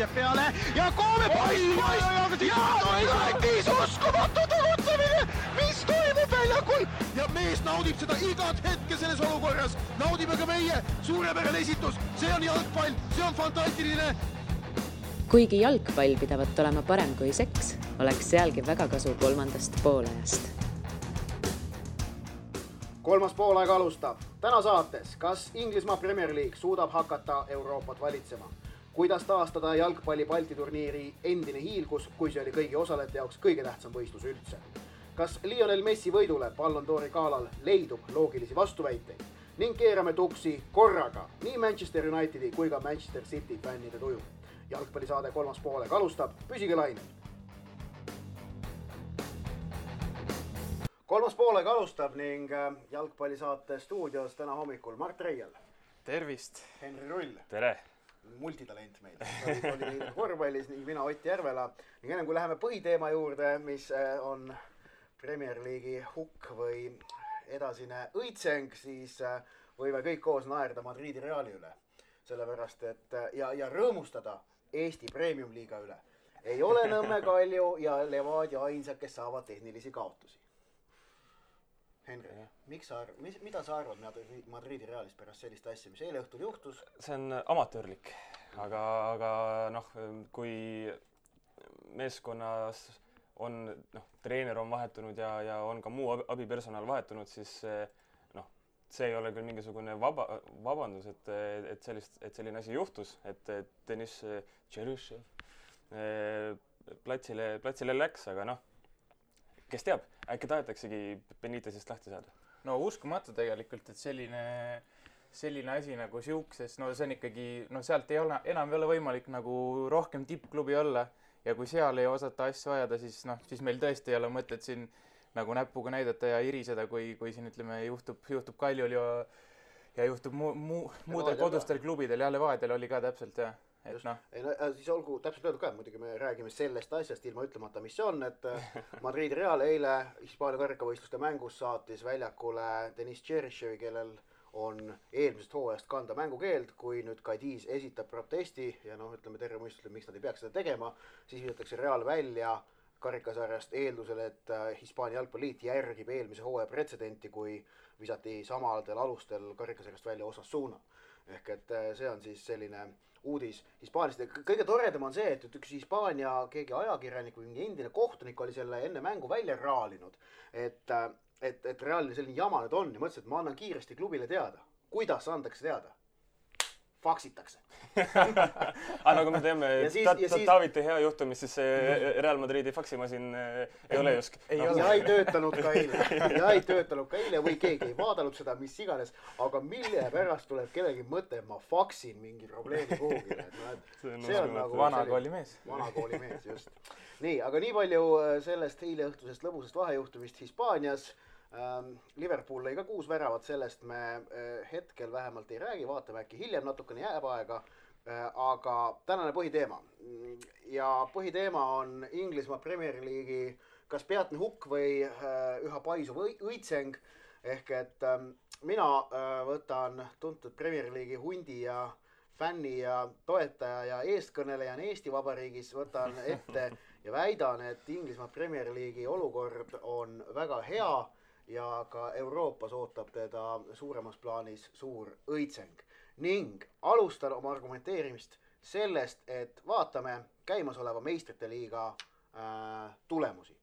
jääb peale ja Koome poiss ja Lätis uskumatu tegutsemine, mis toimub väljakul ja mees naudib seda igat hetke selles olukorras, naudime ka meie, suurepärane esitus, see on jalgpall, see on fantastiline. Kuigi jalgpall pidavat olema parem kui seks, oleks sealgi väga kasu kolmandast poolajast. Kolmas poolaeg alustab. Täna saates, kas Inglismaa Premier League suudab hakata Euroopat valitsema? Kuidas taastada jalgpalli Balti turniiri endine hiilgus, kui see oli kõigi osalejate jaoks kõige tähtsam võistlus üldse? Kas Lionel Messi võidule Ballon d'Ori galal leidub loogilisi vastuväiteid? Ning keerame tuksi korraga nii Manchester Unitedi kui ka Manchester City fännide tuju. Jalgpallisaade kolmas poolaeg alustab, püsige lainel. Kolmas poolaeg alustab ning jalgpallisaate stuudios täna hommikul Mart Reial. Tervist. Henri Rull. Tere. Multitalent meil. Oli korvpallis ning mina Ott Järvela. Ning ennem kui läheme põhiteema juurde, mis on Premier League'i hukk või edasine õitseng, siis võime kõik koos naerda Madridi Reali üle. Sellepärast, et ja rõõmustada Eesti Premium Liiga üle. Ei ole Nõmme Kalju ja Levadia ainsad, kes saavad tehnilisi kaotusi. Henri, mida sa arvad Madridi Realist pärast sellist asja, mis eile õhtul juhtus? See on amatöörlik, aga kui meeskonnas on, treener on vahetunud ja on ka muu abipersonal vahetunud, siis see ei ole küll mingisugune vabandus, et selline asi juhtus, et Deniss Tšerüšev platsile läks, aga kes teab, äkki tahetaksegi Benitezist lahti saada? No uskumatu tegelikult, et selline asi nagu siukses, see on ikkagi, sealt enam ei ole võimalik nagu rohkem tippklubi olla ja kui seal ei osata asju ajada, siis meil tõesti ei ole mõtet siin nagu näpuga näidata ja iriseda, kui siin ütleme juhtub Kaljul ja juhtub muudel kodustel klubidel ja Levadial oli ka täpselt ja siis olgu täpselt öeldud ka, muidugi me räägime sellest asjast ilma ütlemata, mis see on, et Madrid Real eile Hispaania karikavõistluste mängus saatis väljakule Deniss Tšerüševi, kellel on eelmisest hooajast kanda mängukeeld, kui nüüd Cadiz esitab protesti ja ütleme terve mõistusele, miks nad ei peaks seda tegema, siis visatakse Real välja karikasarjast eeldusel, et Hispaania jalgpalliliit järgib eelmise hooaja pretsedenti, kui visati samadel alustel karikasarjast välja Osasuna. Ehk et see on siis selline uudis Hispaaniast. Kõige toredam on see, et üks Hispaania keegi ajakirjanik või endine kohtunik oli selle enne mängu välja raalinud, et reaalne selline jama nüüd on ja mõtlesin, et ma annan kiiresti klubile teada. Kuidas andakse teada? Faksitakse. Aga nagu me teeme, Taaviti hea juhtumis, siis Real Madridi faksimasin ei ole just. Ja ei töötanud ka eile või keegi ei vaadanud seda, mis iganes, aga mille pärast tuleb kellegi mõte, ma faksin mingi probleemi kuhugile. See on nagu vanakoolimees. Vanakoolimees, just. Nii, aga nii palju sellest eile õhtusest lõbusest vahejuhtumist Hispaanias. Liverpool lõi ka 6 väravat, sellest me hetkel vähemalt ei räägi, vaatame äkki hiljem natukene jääb aega, aga tänane põhiteema. Ja põhiteema on Inglismaa Premier League'i kas peatne hukk või üha paisuv õitseng, ehk et mina võtan tuntud Premier League'i hundi ja fänni ja toetaja ja eestkõnelejana Eesti Vabariigis, võtan ette ja väidan, et Inglismaa Premier League'i olukord on väga hea ja ka Euroopas ootab teda suuremas plaanis suur õitseng. Ning alustan oma argumenteerimist sellest, et vaatame käimasoleva meistrite liiga tulemusi.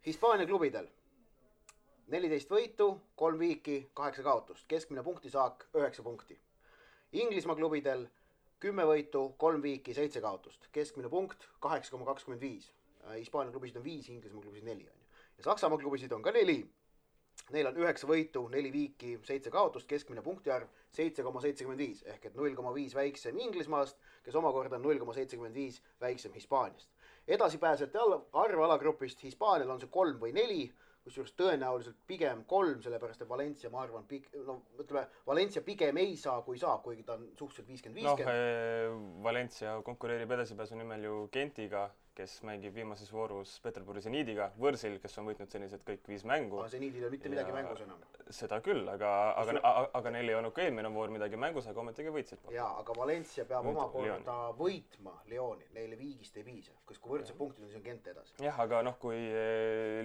Hispaania klubidel 14 võitu, 3 viiki, 8 kaotust, keskmine punktisaak 9 punkti. Inglismaa klubidel 10 võitu, 3 viiki, 7 kaotust, keskmine punkt 8,25. Hispaania klubisid on 5, Inglismaa klubisid 4. Ja Saksamaa klubisid on ka 4. Neil on 9 võitu, 4 viiki, 7 kaotust, keskmine punktiarv 7,75 ehk et 0,5 väiksem Inglismaast, kes omakorda on 0,75 väiksem Hispaaniast. Edasipääsete arv alagrupist Hispaanial on see 3 või 4, kusjuures tõenäoliselt pigem 3, sellepärast et Valencia, ma arvan, Valencia pigem ei saa, kuigi ta on suhteliselt 50-50. Valencia konkureerib edasipääsu nimel ju Gentiga, kes mängib viimases voorus Peterburi Zeniidiga, võrsil, kes on võitnud senised kõik 5 mängu. Zeniidil ei mitte midagi mängus enam. Seda küll, aga neil ei olnud ka eelmine voor midagi mängus, aga ometigi võitsid. Jaa, aga Valencia peab omakorda võitma Lyoni, neile viigist ei piisa, kui võrdse punktid on, siis on Gent edasi. Jah, aga kui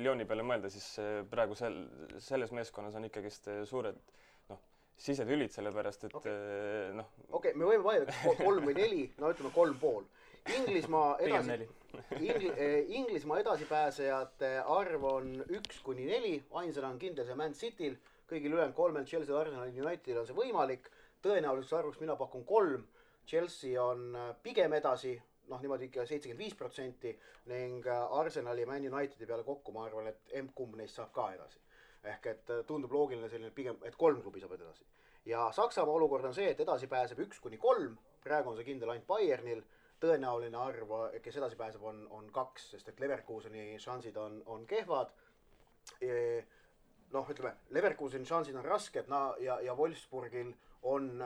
Lyoni peale mõelda, siis praegu selles meeskonnas on ikkagist suured sisetülid, sellepärast, et Okei, me võime vaielda 3 või 4, no ütleme 3,5. Inglismaa edasipääsejate arv on 1-4, ainsana on kindel see Man Cityl, kõigil ülejäänud 3 Chelsea, Arsenal, Unitedil on see võimalik, tõenäoliselt arvuks mina pakun 3, Chelsea on pigem edasi, niimoodi ikka 75% ning Arsenali ja Man Unitedi peale kokku ma arvan, et kumb neist saab ka edasi. Ehk et tundub loogiline selline pigem, et 3 klubi saab edasi. Ja Saksamaa olukord on see, et edasi pääseb 1-3, praegu on see kindel ainult Bayernil, tõenäoline arv, kes edasi pääseb, on 2, sest et Leverkuseni šansid on kehvad. Ütleme, Leverkuseni šansid on rasked ja Wolfsburgil on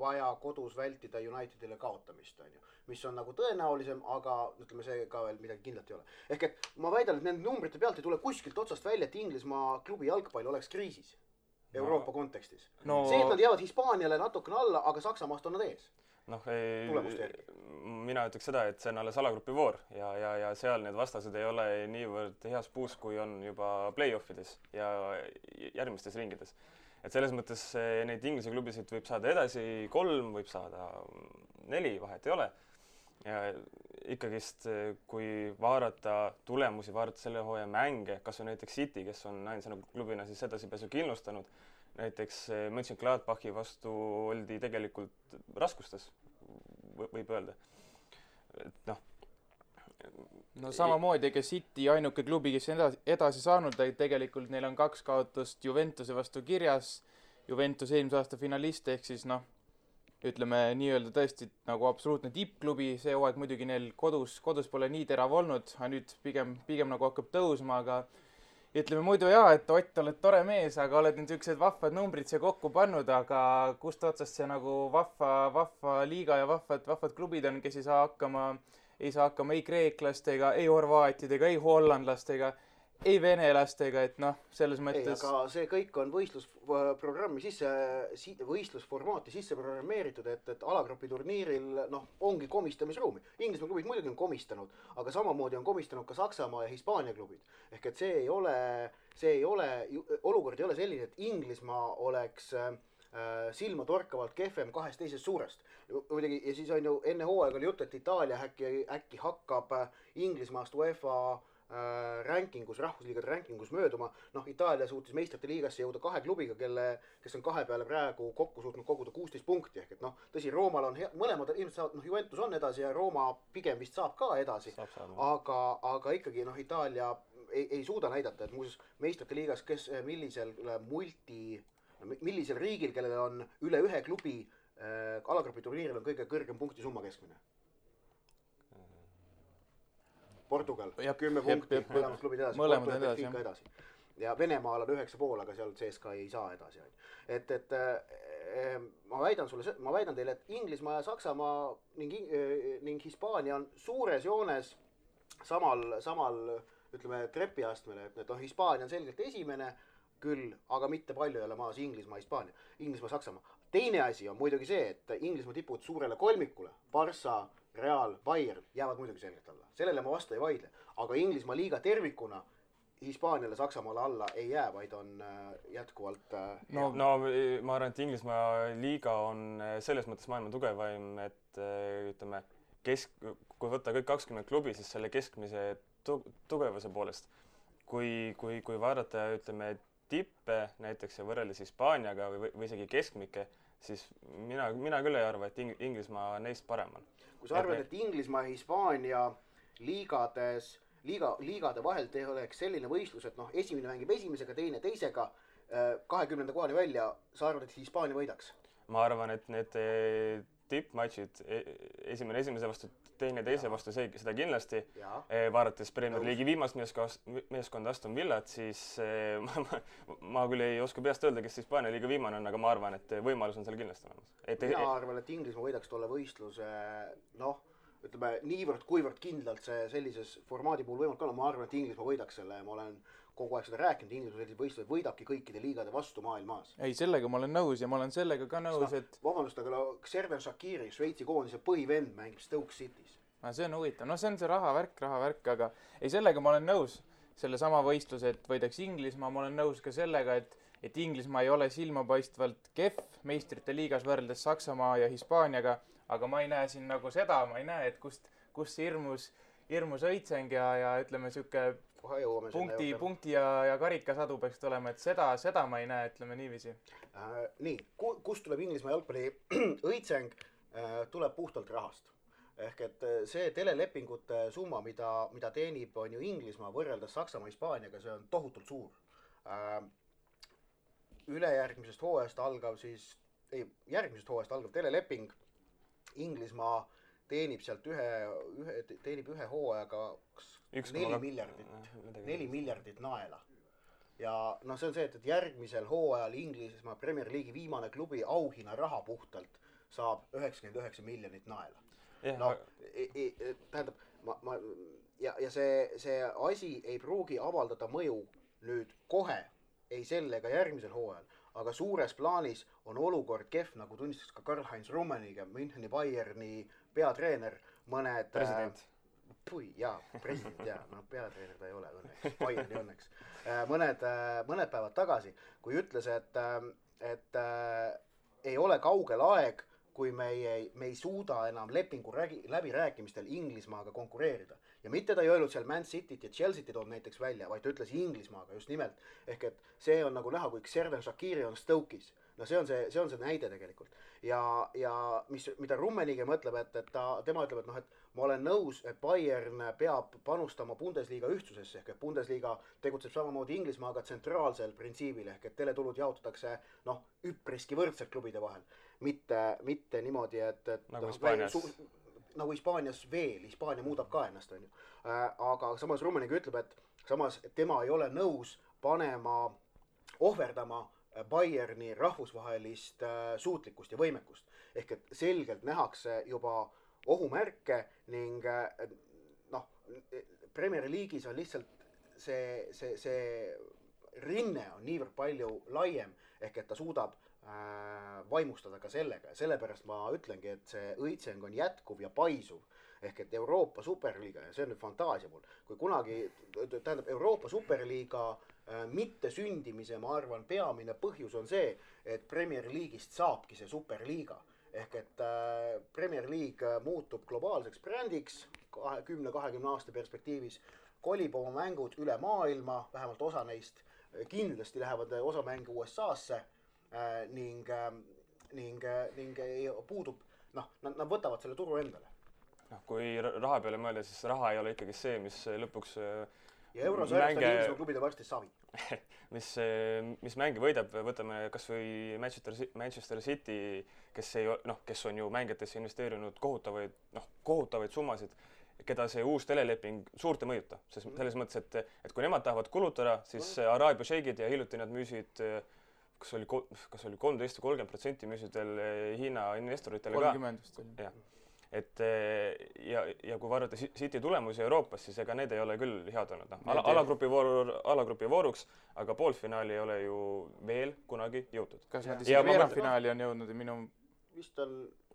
vaja kodus vältida Unitedile kaotamist, mis on nagu tõenäolisem, aga ütleme, see ka veel midagi kindlalt ei ole. Ehk et ma väidan, et nende numbrite pealt ei tule kuskilt otsast välja, et Inglismaa klubi jalgpall oleks kriisis Euroopa kontekstis. See, et nad jäävad Hispaaniale natukene alla, aga Saksamaast on nad ees. Mina ütleks seda, et see on alles alagrupi voor ja seal need vastased ei ole niivõrd heas puus, kui on juba play-offides ja järgmistes ringides. Et selles mõttes neid Inglise klubisid võib saada edasi 3, võib saada 4, vahet ei ole. Ja ikkagist, kui vaadata tulemusi, vaadata selle hooaja mänge, kas on näiteks City, kes on ainsana klubina siis edasipääsu kindlustanud, näiteks Mönchengladbachi vastu oldi tegelikult raskustes, võib öelda. Samamoodi, ega City ainuke klubi, kes on edasi saanud, tegelikult neil on 2 kaotust Juventuse vastu kirjas, Juventus eelmise aasta finalist, ehk siis ütleme nii-öelda tõesti nagu absoluutne tippklubi, see hooaeg muidugi neil kodus pole nii terav olnud, aga nüüd pigem nagu hakkab tõusma, aga ütleme muidu et Ott, oled tore mees, aga oled nüüd niisugused vahvad numbrid siia kokku pannud, aga kust otsast see nagu vahva liiga ja vahvad klubid on, kes ei saa hakkama ei kreeklastega, ei horvaatidega, ei hollandlastega, ei venelastega, et selles mõttes... Aga see kõik on võistlusprogrammi võistlusformaati sisse programmeeritud, et alagrupi turniiril ongi komistamisruumi. Inglismaa klubid muidugi on komistanud, aga samamoodi on komistanud ka Saksamaa ja Hispaania klubid. Ehk et olukord ei ole selline, et Inglismaa oleks silma torkavalt kehvem 2 teisest suurest. Ja siis on ju enne hooaega oli jutt, et Itaalia äkki hakkab Inglismaast UEFA rankingus, rahvusliigade rankingus mööduma. Itaalia suutis meistrite liigasse jõuda 2 klubiga, kes on 2 peale praegu kokku suutnud koguda 16 punkti. Ehk et tõsi, Roomal on mõlemad ilmselt saavad, Juventus on edasi ja Rooma pigem vist saab ka edasi. Aga ikkagi Itaalia ei suuda näidata, et muuseas meistrite liigas, millisel riigil, kellel on üle 1 klubi alagrupi turniiril on kõige kõrgem punkti summa keskmine? Portugal, 10 punkti, mõlemad klubid edasi. Ja Venemaal on 9,5, aga seal CSKA ei saa edasi. Ma väidan teile, et Inglismaa ja Saksamaa ning Hispaania on suures joones samal ütleme, trepiastmele, et Hispaania on selgelt esimene küll, aga mitte palju ei ole maas Inglismaa, Hispaania, Inglismaa, Saksamaa. Teine asi on muidugi see, et Inglismaa tipud suurele kolmikule, Barca, Real, Bayern jäävad muidugi selgelt alla. Sellele ma vastu ei vaidle, aga Inglismaa liiga tervikuna Hispaaniale, Saksamaale alla ei jää, vaid on jätkuvalt... ma arvan, et Inglismaa liiga on selles mõttes maailma tugevaim, et ütleme, kui võtta kõik 20 klubi, siis selle keskmise tugevuse poolest. Kui vaadata, ütleme, tippe näiteks ja võrreldes Hispaaniaga või isegi keskmike, siis mina küll ei arva, et Inglismaa neist parem on. Kui sa arvad, et Inglismaa ja Hispaania liigade vahel oleks selline võistlus, et esimene mängib esimesega, teine teisega, 20. kohani välja, sa arvad, et Hispaania võidaks? Ma arvan, et need tippmatšid, esimene esimese vastu, teine teise vastu, seda kindlasti. Vaadates Premier League'i viimast meeskonda Aston Villat, siis ma küll ei oska peast öelda, kes Hispaania liiga viimane on, aga ma arvan, et võimalus on seal kindlasti olemas. Mina arvan, et Inglismaa võidaks tolle võistluse, ütleme, kuivõrd kindlalt see sellises formaadi puhul võimalik olla, ma arvan, et Inglismaa võidaks selle ja ma olen kogu aeg seda rääkinud, Inglismaa sellised võistlused võidabki kõikide liigade vastu maailmas. ei, sellega ma olen nõus ja ma olen sellega ka nõus, et vabandust, aga Xherdan Shaqiri, Šveitsi koondise põhivend, mängib Stoke City's. see on huvitav, see on see rahavärk, aga ei, sellega ma olen nõus, selle sama võistluse, et võidaks Inglismaa, ma olen nõus ka sellega, et Inglismaa ei ole silmapaistvalt kehv meistrite liigas võrreldes Saksamaa ja Hispaaniaga, aga ma ei näe siin nagu seda, ma ei näe, et kust see hirmus õitseng ja ütleme sihuke punkti ja karikasadu peaks tulema, et seda ma ei näe, ütleme niiviisi. Nii, kust tuleb Inglismaa jalgpalli õitseng, tuleb puhtalt rahast. Ehk et see telelepingute summa, mida teenib on ju Inglismaa võrreldes Saksamaa Hispaaniaga, see on tohutult suur. Järgmisest hooajast algav teleleping Inglismaa teenib sealt ühe hooajaga 4 miljardit naela. Ja see on see, et järgmisel hooajal Inglismaa Premier League'i viimane klubi auhinna raha puhtalt saab 99 miljonit naela. Tähendab, ja see asi ei pruugi avaldada mõju nüüd kohe, ei selle ega järgmisel hooajal, aga suures plaanis on olukord kehv, nagu tunnistas ka Karl-Heinz Rummenigge, Müncheni Bayerni peatreener, mõned president. President, peatreener ta ei ole õnneks, Bayerni õnneks. Mõned päevad tagasi, kui ütles, et ei ole kaugel aeg, kui me ei suuda enam lepingu läbirääkimistel Inglismaaga konkureerida. Ja mitte ta ei öelnud seal Man Cityt ja Chelsea't toon näiteks välja, vaid ta ütles Inglismaaga just nimelt. Ehk et see on nagu näha, kui Xherdan Shaqiri on Stoke'is. See on see näide tegelikult. Ja mida Rummenigge mõtleb, et tema ütleb, et ma olen nõus, et Bayern peab panustama Bundesliga ühtsusesse, ehk et Bundesliga tegutseb samamoodi Inglismaaga tsentraalsel printsiibil, ehk et teletulud jaotatakse üpriski võrdselt klubide vahel. Mitte niimoodi, et nagu Hispaanias veel, Hispaania muudab ka ennast, on ju. Aga samas Rummenigge ütleb, et samas tema ei ole nõus ohverdama Bayerni rahvusvahelist suutlikkust ja võimekust. Ehk et selgelt nähakse juba ohumärke ning Premier League'is on lihtsalt see rinne on niivõrd palju laiem, ehk et ta suudab vaimustada ka sellega ja sellepärast ma ütlengi, et see õitseng on jätkuv ja paisuv. Ehk et Euroopa Superliiga, ja see on nüüd fantaasia mul, kui kunagi, tähendab Euroopa Superliiga mitte sündimise, ma arvan, peamine põhjus on see, et Premier League'ist saabki see Superliiga. Ehk et Premier League muutub globaalseks brändiks 10-20 aasta perspektiivis, kolib oma mängud üle maailma, vähemalt osa neist kindlasti lähevad osa mängu USA-sse ning puudub, nad võtavad selle turu endale. Kui raha peale mõelda, siis raha ei ole ikkagi see, mis lõpuks ja eurosarjast on Inglismaa klubide varsti savi. mis mängi võidab, võtame kas või Manchester City, kes on ju mängijatesse investeerinud kohutavaid summasid, keda see uus teleleping suurt ei mõjuta. Selles mõttes, et kui nemad tahavad kulutada, siis Araabia šeigid ja hiljuti nad müüsid kas oli 13 või 30% müüsid veel Hiina investoritele ka. 30 vist oli. Jah. Ja kui vaadata City tulemusi Euroopas, siis ega need ei ole küll head olnud. Alagrupi vooruks, aga poolfinaali ei ole ju veel kunagi jõutud. Kas nad isegi veerandfinaali on jõudnud?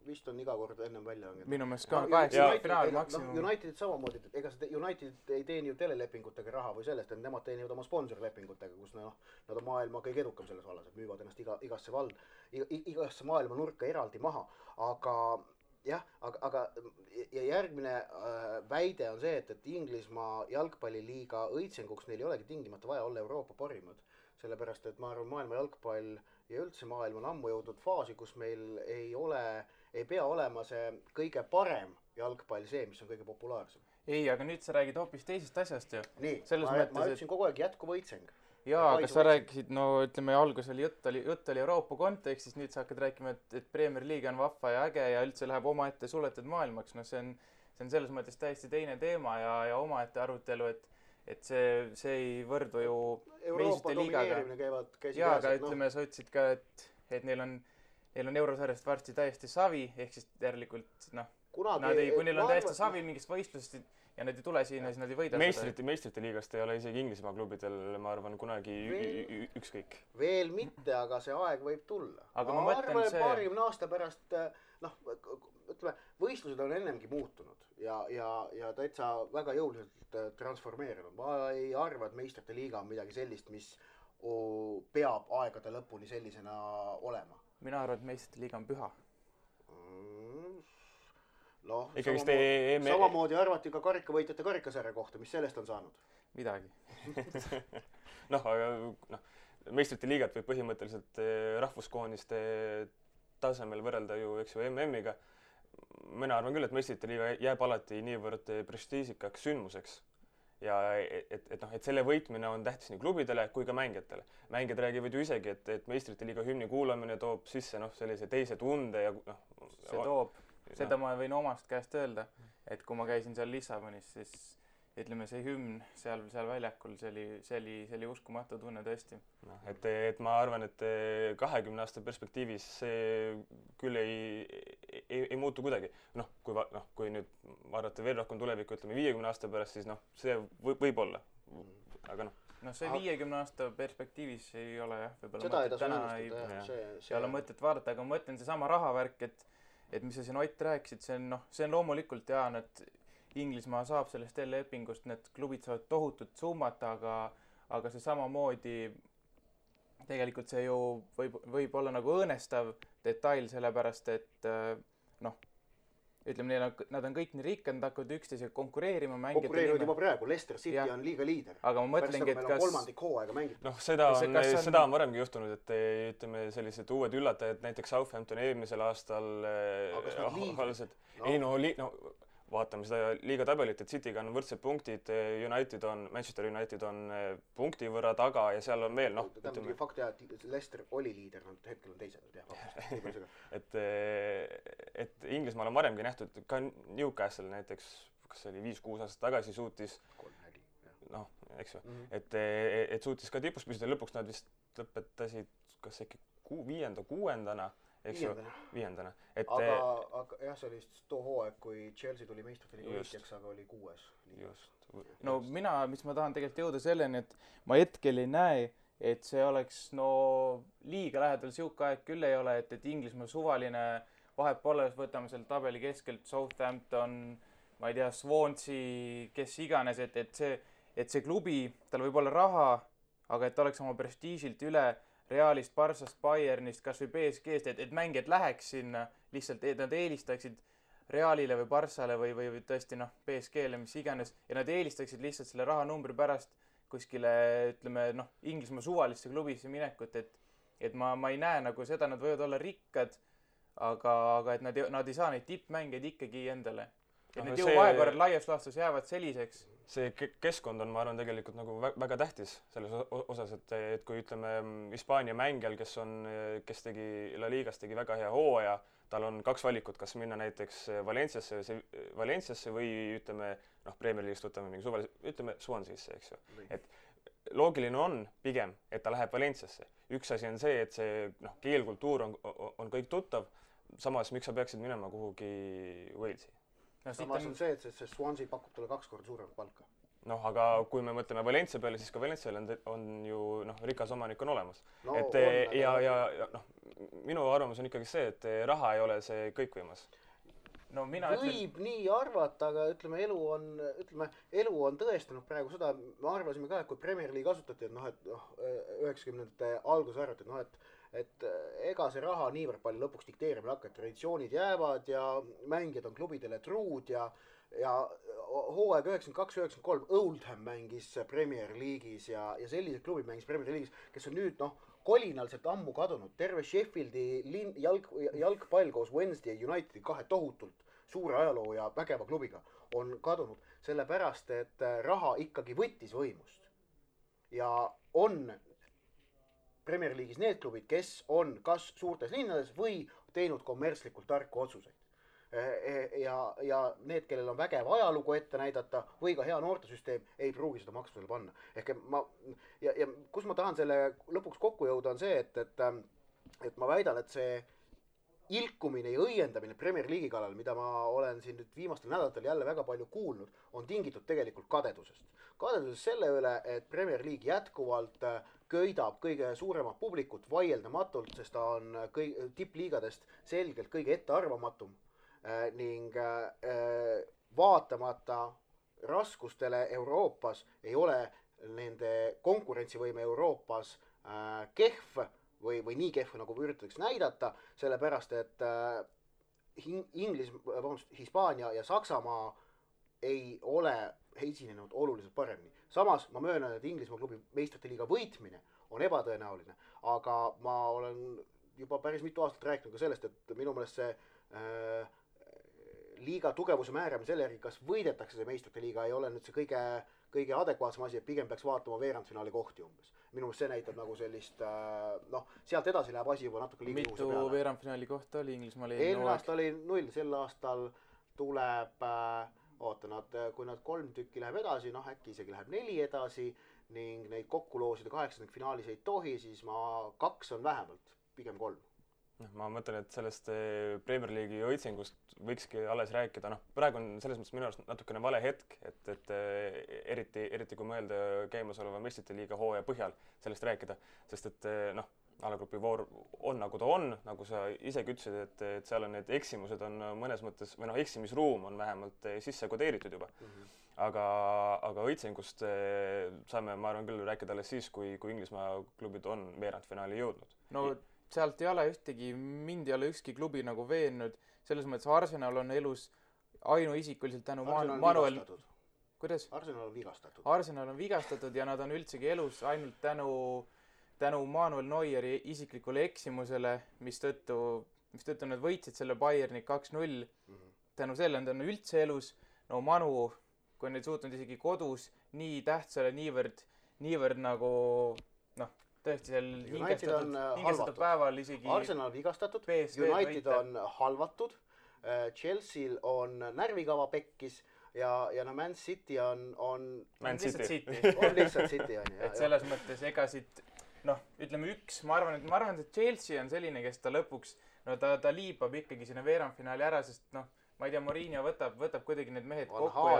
Vist on iga kord ennem välja langed. Minu meelest ka 8 finaali maksimum. United samamoodi, ega United ei teeni ju telelepingutega raha või sellest, et nemad teenivad oma sponsorlepingutega, kus nad on maailma kõige edukam selles vallas, et müüvad ennast igasse maailma nurka eraldi maha. Aga järgmine väide on see, et Inglismaa jalgpalliliiga õitsenguks neil ei olegi tingimata vaja olla Euroopa parimad. Sellepärast, et ma arvan, maailma jalgpall ja üldse maailm on ammu jõudnud faasi, kus meil ei pea olema see kõige parem jalgpall see, mis on kõige populaarsem. Ei, aga nüüd sa räägid hoopis teisest asjast ju. Nii, ma ütlesin kogu aeg jätkuv õitseng. Jaa, aga sa rääkisid, ütleme, algus oli jutt oli Euroopa kontekstis, nüüd sa hakkad rääkima, et Premier League on vahva ja äge ja üldse läheb omaette suletud maailmaks. See on selles mõttes täiesti teine teema ja omaette arutelu, et see ei võrdu ju Euroopa domineerimine käivad käsi jaa, aga ütleme, sa ütlesid ka, et neil on eurosarjast varsti täiesti savi, ehk siis järelikult kunagi kui neil on täiesti savi mingist võistlusest ja nad ei tule siin ja siis nad ei võida meistrite liigast ei ole isegi Inglismaa klubidel, ma arvan, kunagi ükskõik. Veel mitte, aga see aeg võib tulla. Aga ma mõtlen arvan, et 20 aasta pärast, ütleme, võistlused on ennemgi muutunud ja täitsa väga jõuliselt transformeerunud. Ma ei arva, et meistrite liiga on midagi sellist, mis peab aegade lõpuni sellisena olema. Mina arvan, et meistrite liiga on püha. Noh, samamoodi arvati ka karikavõitjate karikasarja kohta, mis sellest on saanud? Midagi. aga meistrite liigat võib põhimõtteliselt rahvuskooniste tasemel võrrelda ju, eks ju, MM-iga. Mina arvan küll, et meistrite liiga jääb alati niivõrd prestiižikaks sündmuseks. Ja et selle võitmine on tähtis nii klubidele kui ka mängijatele. Mängijad räägivad ju isegi, et meistrite liiga hümni kuulamine toob sisse sellise teise tunde ja see toob. Seda ma võin omast käest öelda, et kui ma käisin seal Lissabonis, siis ütleme see hümn seal väljakul, see oli uskumatu tunne tõesti. Et ma arvan, et 20 aasta perspektiivis see küll ei muutu kuidagi. Kui nüüd vaadata veel rohkem tulevikku, ütleme 50 aasta pärast, siis see võib olla. Aga see 50 aasta perspektiivis ei ole jah, seda ei tasu ennustada. See ei ole mõtet vaadata, aga ma mõtlen seesama rahavärk, et mis sa siin Ott rääkisid, see on loomulikult et Inglismaa saab sellest lepingust, need klubid saavad tohutut summat, aga see samamoodi tegelikult see ju võib olla nagu õõnestav detail, sellepärast et ütleme, nad on kõik nii rikkad, nad hakkavad üksteisega konkureerima. Konkureerivad juba praegu, Leicester City on liiga liider. Aga ma mõtlengi, et kas... kolmandik hooaega mängib. Seda on varemgi juhtunud, et ütleme sellised uued üllatajad, näiteks Southampton eelmisel aastal vaatame seda liiga tabelit, et Cityga on võrdsed punktid, Manchester United on punkti võrra taga ja seal on veel, ütleme... Fakt jah, et Leicester oli liider, nad hetkel on teised. et Inglismaal on varemgi nähtud, ka Newcastle näiteks, kas see oli 5-6 aastat tagasi suutis, eks ju, et suutis ka tipus püsida, lõpuks nad vist lõpetasid, kas äkki 5-6-ndana, eks ju, 5-ndana. Aga jah, see oli too hooaeg, kui Chelsea tuli meistrite liiga võitjaks, aga oli 6. Just. Mis ma tahan tegelikult jõuda selleni, et ma hetkel ei näe, et see oleks liiga lähedal siuke aeg küll ei ole, et Inglismaa suvaline vahepoole, võtame selle tabeli keskelt Southampton, ma ei tea, Swansea, kes iganes, et see klubi, tal võib olla raha, aga et ta oleks oma prestiižilt üle Realist, Barssast, Bayernist, kas või PSG-st, et mängijad läheks sinna, lihtsalt nad eelistaksid Realile või Barssale või tõesti PSG-le, mis iganes, ja nad eelistaksid lihtsalt selle rahanumbri pärast kuskile, ütleme, Inglismaa suvalisse klubisse minekut, et ma ei näe nagu seda, nad võivad olla rikkad, aga et nad ei saa neid tippmängeid ikkagi endale. Et need jõuvahekorrad laias laastus jäävad selliseks. See keskkond on, ma arvan, tegelikult nagu väga tähtis selles osas, et kui ütleme Hispaania mängijal, kes tegi La Ligas tegi väga hea hooaja, tal on 2 valikut, kas minna näiteks Valenciasse või ütleme, Premier League'ist võtame mingi suvalise, ütleme Swanseasse, eks ju. Et loogiline on pigem, et ta läheb Valenciasse. Üks asi on see, et see keelkultuur on kõik tuttav, samas miks sa peaksid minema kuhugi Walesi? Samas on see, et see Swansea pakub talle 2 korda suuremat palka. Aga kui me mõtleme Valencia peale, siis ka Valencial on ju rikas omanik on olemas. Minu arvamus on ikkagi see, et raha ei ole see kõikvõimas. Võib nii arvata, aga ütleme, elu on tõestanud praegu seda, me arvasime ka, et kui Premier League asutati, et 90ndate alguses arvati, et ega see raha niivõrd palju lõpuks dikteerimine hakkab, traditsioonid jäävad ja mängijad on klubidele truud ja hooaeg 92-93 Oldham mängis Premier League'is ja sellised klubid mängis Premier League'is, kes on nüüd kolinalselt ammu kadunud. Terve Sheffieldi jalgpall koos Wednesday Unitedi 2 tohutult suure ajaloo ja vägeva klubiga on kadunud, sellepärast et raha ikkagi võttis võimust. Ja on Premier League'is need klubid, kes on kas suurtes linnades või teinud kommertslikult tarku otsuseid. Ja need, kellel on vägev ajalugu ette näidata või ka hea noortesüsteem, ei pruugi seda maksusele panna. Ja kus ma tahan selle lõpuks kokku jõuda on see, et ma väidan, et see ilkumine ja õiendamine Premier League'i kallal, mida ma olen siin nüüd viimastel nädalatel jälle väga palju kuulnud, on tingitud tegelikult kadedusest. Kadedusest selle üle, et Premier League jätkuvalt köidab kõige suuremat publikut vaieldamatult, sest ta on tippliigadest selgelt kõige ettearvamatum ning vaatamata raskustele Euroopas ei ole nende konkurentsivõime Euroopas kehv või nii kehv, nagu üritatakse näidata, sellepärast, et Hispaania ja Saksamaa ei ole esinenud oluliselt paremini. Samas ma möönan, et Inglismaa klubi meistrite liiga võitmine on ebatõenäoline, aga ma olen juba päris mitu aastat rääkinud ka sellest, et minu meelest see liiga tugevuse määramine selle järgi, kas võidetakse see meistrite liiga, ei ole nüüd see kõige adekvaatsem asi, et pigem peaks vaatama veerandfinaali kohti umbes. Minu meelest see näitab nagu sellist, sealt edasi läheb asi juba natuke liiga juhuse peale. Mitu veerandfinaali kohta oli Inglismaal eelmine aasta oli 0, sel aastal tuleb, kui nad 3 tükki läheb edasi, äkki isegi läheb 4 edasi ning neid kokku loosida 8. finaalis ei tohi, siis 2 on vähemalt, pigem 3. Ma mõtlen, et sellest Premier League'i õitsingust võikski alles rääkida. Praegu on selles mõttes minu arust natukene vale hetk, et eriti kui mõelda käimasoleva meistrite liiga hooaja põhjal sellest rääkida, sest et alagrupi voor on nagu ta on, nagu sa isegi ütlesid, et seal on need eksimused on mõnes mõttes, või eksimisruum on vähemalt sisse kodeeritud juba. Aga õitsingust saame, ma arvan küll, rääkida alles siis, kui Inglismaa klubid on veerandfinaali jõudnud. No sealt ei ole mind ei ole ükski klubi nagu veennud, selles mõttes Arsenal on elus ainuisikuliselt tänu Manuel... Kuidas? Arsenal on vigastatud. Arsenal on vigastatud ja nad on üldsegi elus ainult tänu Manuel Neueri isiklikule eksimusele, mistõttu nad võitsid selle Bayerni 2-0. Tänu selle on üldse elus. No Manu, kui on neid suutnud isegi kodus nii tähtsale niivõrd nagu tõesti seal hingestatud päeval isegi... Arsenal on vigastatud, United on halvatud, Chelsea'l on närvikava pekkis ja Man City on lihtsalt City. On lihtsalt City, on ju. Et selles mõttes ega siit, ütleme ma arvan, et Chelsea on selline, kes ta lõpuks, ta liibab ikkagi sinna veerandfinaali ära, sest ma ei tea, Mourinho võtab kuidagi need mehed kokku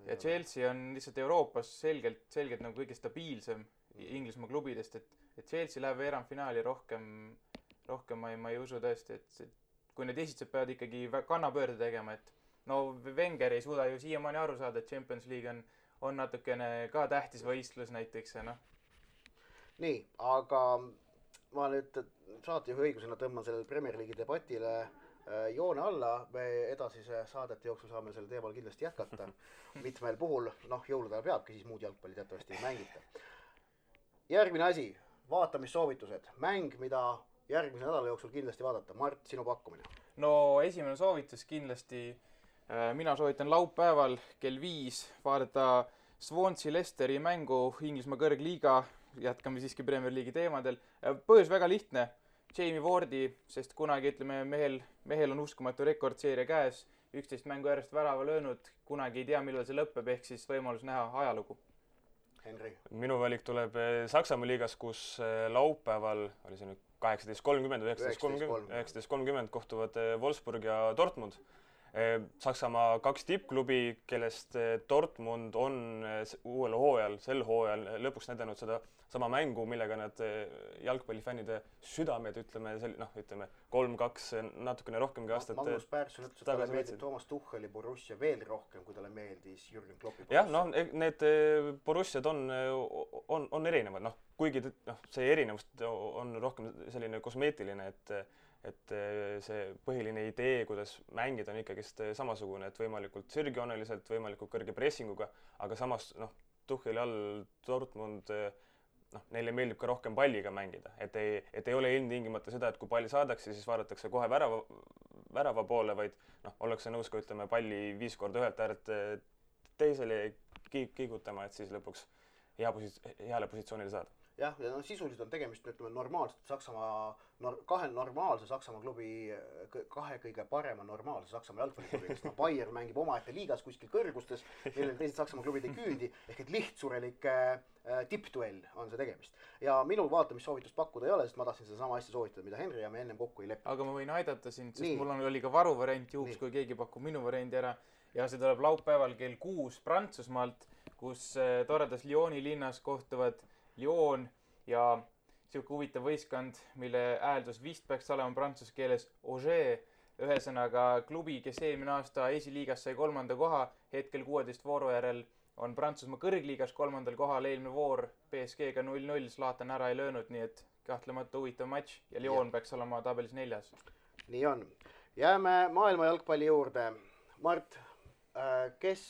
ja Chelsea on lihtsalt Euroopas selgelt nagu kõige stabiilsem Inglismaa klubidest, et Chelsea läheb veerandfinaali rohkem ma ei usu tõesti, et kui need esitsed peavad ikkagi kannapöörde tegema, et Wenger ei suuda ju siiamaani aru saada, et Champions League on natukene ka tähtis võistlus näiteks. Nii, aga ma nüüd saatejuhi õigusena tõmban sellele Premier League'i debatile joone alla, me edasise saadete jooksul saame selle teemal kindlasti jätkata. Mitmel puhul, jõulude ajal peabki, siis muud jalgpalli teatavasti ei mängita. Järgmine asi, vaatamissoovitused. Mäng, mida järgmise nädala jooksul kindlasti vaadata. Mart, sinu pakkumine. No esimene soovitus kindlasti, mina soovitan laupäeval kell 5 vaadata Swansea Leicesteri mängu Inglismaa kõrgliiga. Jätkame siiski Premier League'i teemadel. Põhjus väga lihtne. Jamie Wardi, sest kunagi, ütleme, mehel on uskumatu rekordseeria käes, 11 mängu järjest värava löönud, kunagi ei tea, millal see lõpeb, ehk siis võimalus näha ajalugu. Henri. Minu valik tuleb Saksamaa liigas, kus laupäeval oli see nüüd 18.30 või 19.30 kohtuvad Wolfsburg ja Dortmund. Saksamaa 2 tippklubi, kellest Dortmund on sel hooajal lõpuks näidanud seda sama mängu, millega nad jalgpallifännide südamed, ütleme 3-2 natukene rohkemgi aastat Magnus Persson ütles, et talle meeldib Toomas Tucheli Borussia veel rohkem, kui talle meeldis Jürgen Kloppi Borussia. Jah, need Borussiad on erinevad, kuigi see erinevus on rohkem selline kosmeetiline, et see põhiline idee, kuidas mängida, on ikkagist samasugune, et võimalikult sirgjooneliselt, võimalikult kõrge pressinguga, aga samas Tucheli all Dortmund neile meeldib ka rohkem palliga mängida, et ei ole ilmtingimata seda, et kui palli saadakse, siis vaadatakse kohe värava poole, vaid ollakse nõus ka, ütleme, palli 5 korda ühelt äärelt teisele kiigutama, et siis lõpuks heale positsioonile saada. jah, ja no sisuliselt on tegemist, ütleme, normaalselt Saksamaa, kahe normaalse Saksamaa klubi, kahe kõige parema normaalse Saksamaa jalgpalliklubi, kes Bayern mängib omaette liigas kuskil kõrgustes, millele teised Saksamaa klubid ei küündi, ehk et lihtsurelike tippduell on see tegemist. Ja minul vaatamissoovitust pakkuda ei ole, sest ma tahtsin seda sama asja soovitada, mida Henri ja me ennem kokku ei lepi. Aga ma võin aidata sind, sest mul oli ka varuvariant juhuks, kui keegi pakub minu variandi ära. Ja see tuleb laupäeval kell 6 Prantsusmaalt, kus toredas Lyoni linnas kohtuvad Lyon ja siuke huvitav võistkond, mille hääldus vist peaks olema prantsuse keeles Auger, ühesõnaga klubi, kes eelmine aasta esiliigas sai 3. koha, hetkel 16 vooru järel on Prantsusmaa kõrgliigas 3. kohal, eelmine voor PSG-ga 0-0, Zlatan ära ei löönud, nii et kahtlemata huvitav matš ja Lyon peaks olema tabelis 4. Nii on. Jääme maailma jalgpalli juurde. Mart, kes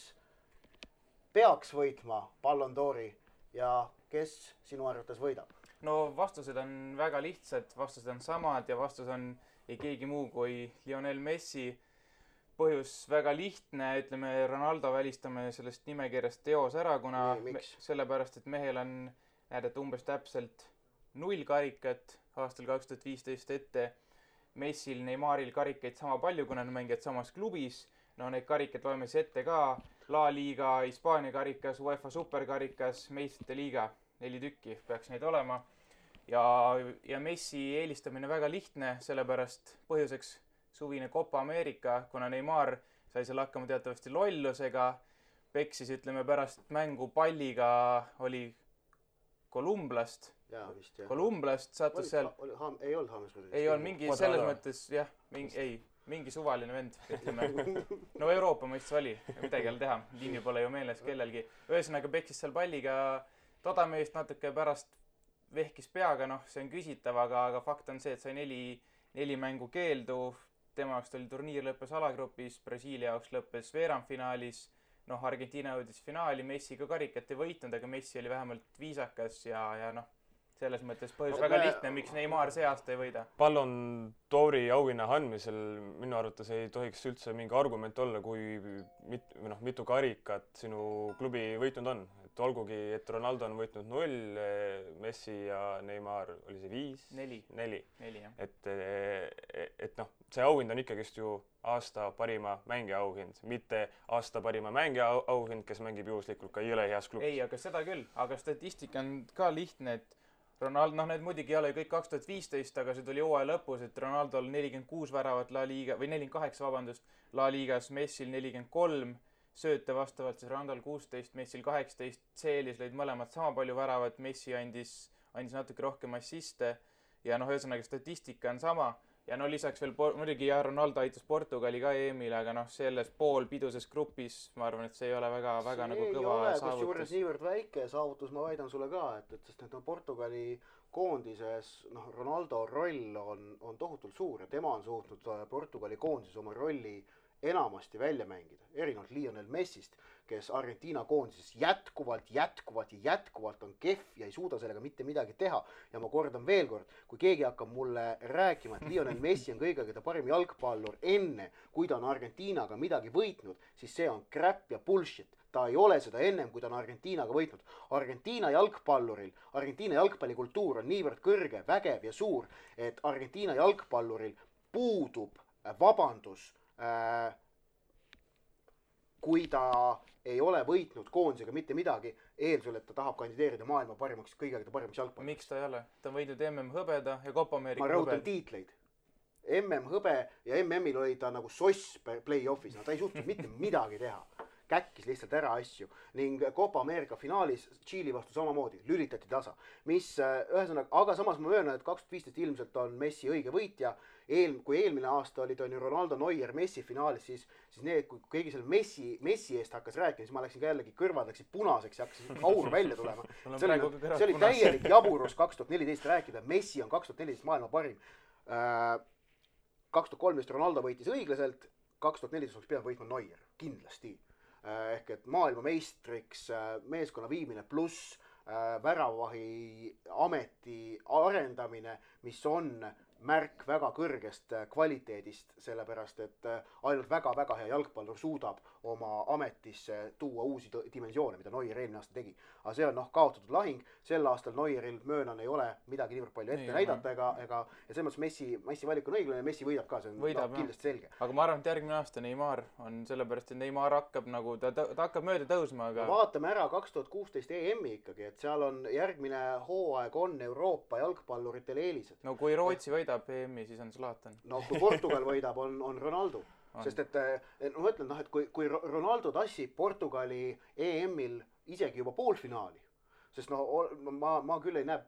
peaks võitma Ballon d'Ori ja kes sinu arvates võidab? No vastused on väga lihtsad, vastused on samad ja vastus on ei keegi muu kui Lionel Messi. Põhjus väga lihtne, ütleme Ronaldo välistame sellest nimekirjast teos ära, kuna sellepärast, et mehel on näidata umbes täpselt 0 karikat aastal 2015 ette. Messil, Neymaril karikaid sama palju, kuna nad mängivad samas klubis. No neid karikad loeme ette ka. La Liga, Hispaania karikas, UEFA superkarikas, meistrite liiga. 4 tükki peaks neid olema. Ja Messi eelistamine väga lihtne, sellepärast põhjuseks suvine Copa America, kuna Neymar sai seal hakkama teatavasti lollusega, peksis, ütleme, pärast mängu palliga oli Kolumblast. Kolumblast sattus seal. Ei olnud Hammersmithis. Ei olnud mingi selles mõttes, jah, mingi suvaline vend, ütleme. No Euroopa mõistes oli, midagi jälle teha, nimi pole ju meeles kellelgi. Ühesõnaga peksis seal palliga todameest natuke pärast vehkis peaga, see on küsitav, aga fakt on see, et sai 4 mängu keeldu. Tema jaoks oli turniir lõppes alagrupis, Brasiilia jaoks lõppes veerandfinaalis, Argentiina jõudis finaali, Messi ka karikat ei võitnud, aga Messi oli vähemalt viisakas ja selles mõttes põhjus väga lihtne, miks Neymar see aasta ei võida. Ballon d'Ori auhinna andmisel minu arvates ei tohiks üldse mingi argument olla, kui mitu karikat sinu klubi võitnud on. Et olgugi, et Ronaldo on võitnud 0, Messi ja Neymar oli see 5? 4. jah. Et see auhind on ikkagist ju aasta parima mängija auhind, mitte aasta parima mängija auhind, kes mängib juhuslikult ka jõle heas klubis. Ei, aga seda küll. Aga statistika on ka lihtne, et Ronaldo, need muidugi ei ole kõik 2015, aga see tuli hooaja lõpus, et Ronaldo oli 46 väravat La Liga, või 48, La Ligas, Messil 43, sööte vastavalt siis Ronaldol 16, Messil 18, CL-is lõid mõlemad sama palju väravat, Messi andis natuke rohkem assiste ja ühesõnaga statistika on sama. Ja lisaks veel muidugi Ronaldo aitas Portugali ka EM-ile, aga selles poolpiduses grupis ma arvan, et see ei ole väga nagu kõva saavutus. Kusjuures niivõrd väike saavutus, ma väidan sulle ka, sest Portugali koondises Ronaldo roll on tohutult suur ja tema on suutnud Portugali koondises oma rolli enamasti välja mängida, erinevalt Lionel Messist, kes Argentiina koondises jätkuvalt on kehv ja ei suuda sellega mitte midagi teha. Ja ma kordan veel kord, kui keegi hakkab mulle rääkima, et Lionel Messi on kõige parim jalgpallur enne, kui ta on Argentiinaga midagi võitnud, siis see on crap ja bullshit. Ta ei ole seda ennem, kui ta on Argentiinaga võitnud. Argentiina jalgpallikultuur on niivõrd kõrge, vägev ja suur, et Argentiina jalgpalluril puudub vabandus, kui ta ei ole võitnud koondisega mitte midagi, eeldusel, et ta tahab kandideerida maailma kõige parimaks jalgpalliks. Miks ta ei ole? Ta on võidnud MM-hõbeda ja Copa America hõbed. Ma rõhutan tiitleid. MM-hõbe ja MM-il oli ta nagu soss play-offis. Ta ei suutnud mitte midagi teha. Käkkis lihtsalt ära asju ning Copa America finaalis Tšiili vastu samamoodi lülitati tasa. Aga samas ma möönan, et 2015 ilmselt on Messi õige võitja. Kui eelmine aasta oli ta Ronaldo, Neuer, Messi finaalis, siis kui keegi selle Messi eest hakkas rääkima, siis ma läksin ka jällegi kõrvad, läksin punaseks ja hakkasin aur välja tulema. See oli täielik jaburus 2014 rääkida. Messi on 2014 maailma parim. 2013 Ronaldo võitis õiglaselt, 2014 oleks pidanud võitma Neuer, kindlasti. Ehk et maailma meistriks meeskonna viimine pluss väravavahi ameti arendamine, mis on märk väga kõrgest kvaliteedist, sellepärast et ainult väga-väga hea jalgpallur suudab oma ametisse tuua uusi dimensioone, mida Neuer eelmine aasta tegi. Aga see on kaotatud lahing, sel aastal Neueril möönan ei ole midagi niivõrd palju ette näidata ja selles mõttes Messi valik on õiglane ja Messi võidab ka, see on kindlasti selge. Aga ma arvan, et järgmine aasta Neymar on sellepärast, et Neymar hakkab nagu, ta hakkab mööda tõusma, aga... Vaatame ära 2016 EM-i ikkagi, et seal on järgmine hooaeg on Euroopa jalgpalluritel eelised. No kui Rootsi võidab EM-i, siis on Zlatan. No kui Portugal võidab, on Ronaldo. Sest et ma ütlen, et kui Ronaldo tassib Portugali EM-il isegi juba poolfinaali, sest ma küll ei näe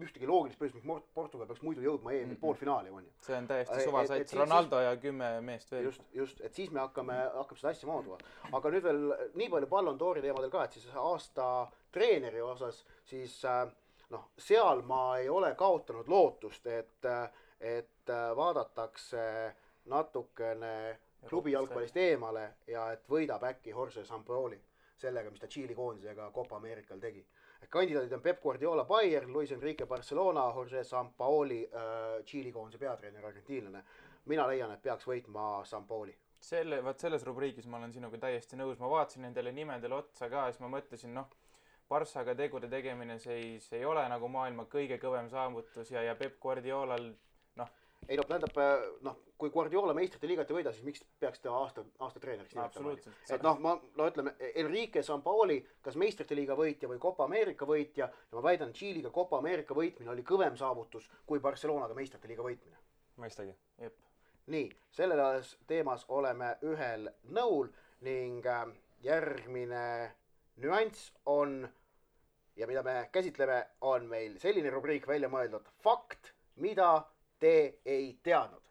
ühtegi loogilist põhjust, miks Portugal peaks muidu jõudma EM-il poolfinaali. See on täiesti suvasats, Ronaldo ja 10 meest veel. Just, et siis me hakkame seda asja maaduma. Aga nüüd veel nii palju Ballon d'Ori teemadel ka, et siis aasta treeneri osas, siis seal ma ei ole kaotanud lootust, et vaadatakse natukene klubi jalgpallist eemale ja et võidab äkki Jorge Sampaoli sellega, mis ta Tšiili koondisega Copa Americal tegi. Kandidaadid on Pep Guardiola Bayern, Luis Enrique Barcelona, Jorge Sampaoli Tšiili koondise peatreener argentiinlane. Mina leian, et peaks võitma Sampaoli. Selles rubriigis ma olen sinuga täiesti nõus. Ma vaatasin nendele nimedele otsa ka ja siis ma mõtlesin, Barssaga tegude tegemine see ei ole nagu maailma kõige kõvem saavutus ja Pep Guardiolal Ei tähendab, kui Guardiola meistrite liigat ei võida, siis miks peaks ta aasta treeneriks nimetama? Et ütleme, Enrique Sampaoli, kas meistrite liiga võitja või Copa America võitja, ja ma väidan, Tšiiliga Copa America võitmine oli kõvem saavutus kui Barcelonaga meistrite liiga võitmine. Mõistagi. Nii, selles teemas oleme ühel nõul ning järgmine nüanss on, ja mida me käsitleme, on meil selline rubriik välja mõeldud fakt, mida te ei teadnud.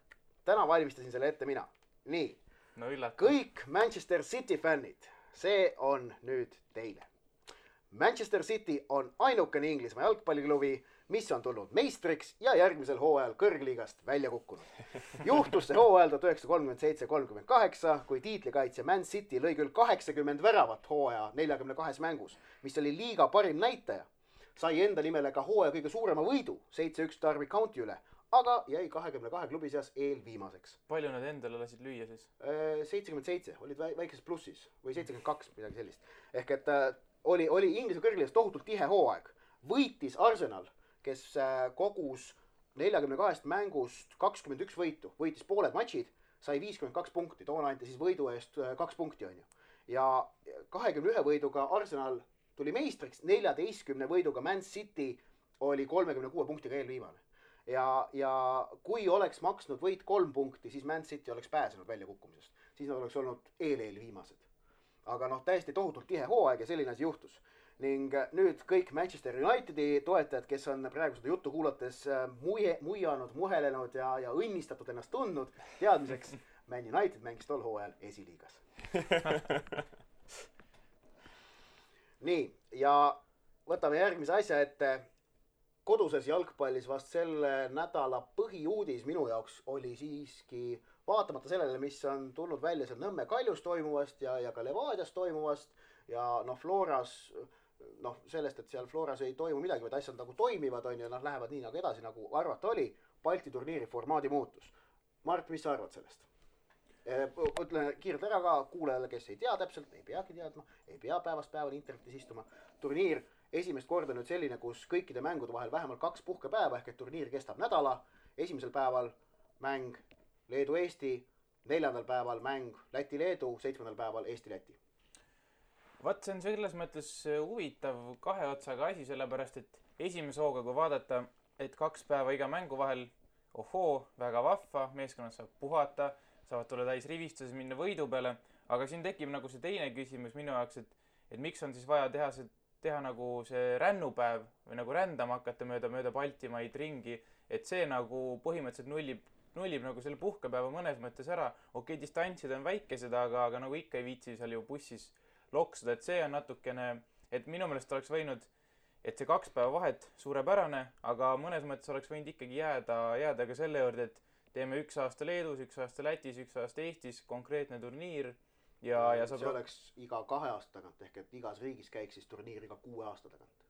Täna valmistasin selle ette mina. Nii, kõik Manchester City fännid, see on nüüd teile. Manchester City on ainukene Inglismaa jalgpalliklubi, mis on tulnud meistriks ja järgmisel hooajal kõrgliigast välja kukkunud. Juhtus see hooajal 1937-38, kui tiitlikaitsja Man City lõi küll 80 väravat hooaja 42 mängus, mis oli liiga parim näitaja. Sai enda nimele ka hooaja kõige suurema võidu, 7-1 Derby County üle, aga jäi 22 klubi seas eelviimaseks. Palju nad endale lasid lüüa siis? 77, olid väikeses plussis või 72, midagi sellist. Ehk et oli Inglise kõrgliigas tohutult tihe hooaeg. Võitis Arsenal, kes kogus 42 mängust 21 võitu, võitis pooled matšid, sai 52 punkti, toona anti siis võidu eest 2 punkti on ju. Ja 21 võiduga Arsenal tuli meistriks, 14 võiduga Man City oli 36 punktiga eelviimane. Ja kui oleks maksnud võit 3 punkti, siis Man City oleks pääsenud väljakukkumisest. Siis nad oleks olnud eelviimased. Aga täiesti tohutult tihe hooaeg ja selline asi juhtus. Ning nüüd kõik Manchester Unitedi toetajad, kes on praegu seda juttu kuulates muianud, muhelenud ja õnnistatud ennast tundnud, teadmiseks, Man United mängis tol hooajal esiliigas. Nii, ja võtame järgmise asja ette. Koduses jalgpallis vast selle nädala põhiuudis minu jaoks oli siiski, vaatamata sellele, mis on tulnud välja seal Nõmme Kaljus toimuvast ja ka Levadias toimuvast ja Floras, sellest, et seal Floras ei toimu midagi, vaid asjad nagu toimivad on ja lähevad nii nagu edasi, nagu arvata oli, Balti turniiri formaadi muutus. Mart, mis sa arvad sellest? Ütlen kiirelt ära ka kuulajale, kes ei tea täpselt, ei peagi teadma, ei pea päevast päevani internetis istuma. Turniir esimest korda nüüd selline, kus kõikide mängude vahel vähemalt 2 puhkepäeva, ehk et turniir kestab nädala. Esimesel päeval mäng Leedu-Eesti, 4. päeval mäng Läti-Leedu, 7. päeval Eesti-Läti. Vaat see on selles mõttes huvitav kahe otsaga asi, sellepärast et esimese hooga, kui vaadata, et 2 päeva iga mängu vahel, väga vahva, meeskonnad saab puhata, saavad tulla täis rivistuses, minna võidu peale, aga siin tekib nagu see teine küsimus minu jaoks, et miks on siis vaja teha nagu see rännupäev või nagu rändama hakata mööda Baltimaid ringi, et see nagu põhimõtteliselt nullib nagu selle puhkepäeva mõnes mõttes ära. Okei, distantsid on väikesed, aga nagu ikka ei viitsi seal ju bussis loksuda, et see on natukene, et minu meelest oleks võinud, et see 2 päeva vahet suurepärane, aga mõnes mõttes oleks võinud ikkagi jääda ka selle juurde, et teeme 1 aasta Leedus, 1 aasta Lätis, 1 aasta Eestis, konkreetne turniir. Ja see oleks iga 2 aasta tagant, ehk et igas riigis käiks siis turniir iga 6 aasta tagant.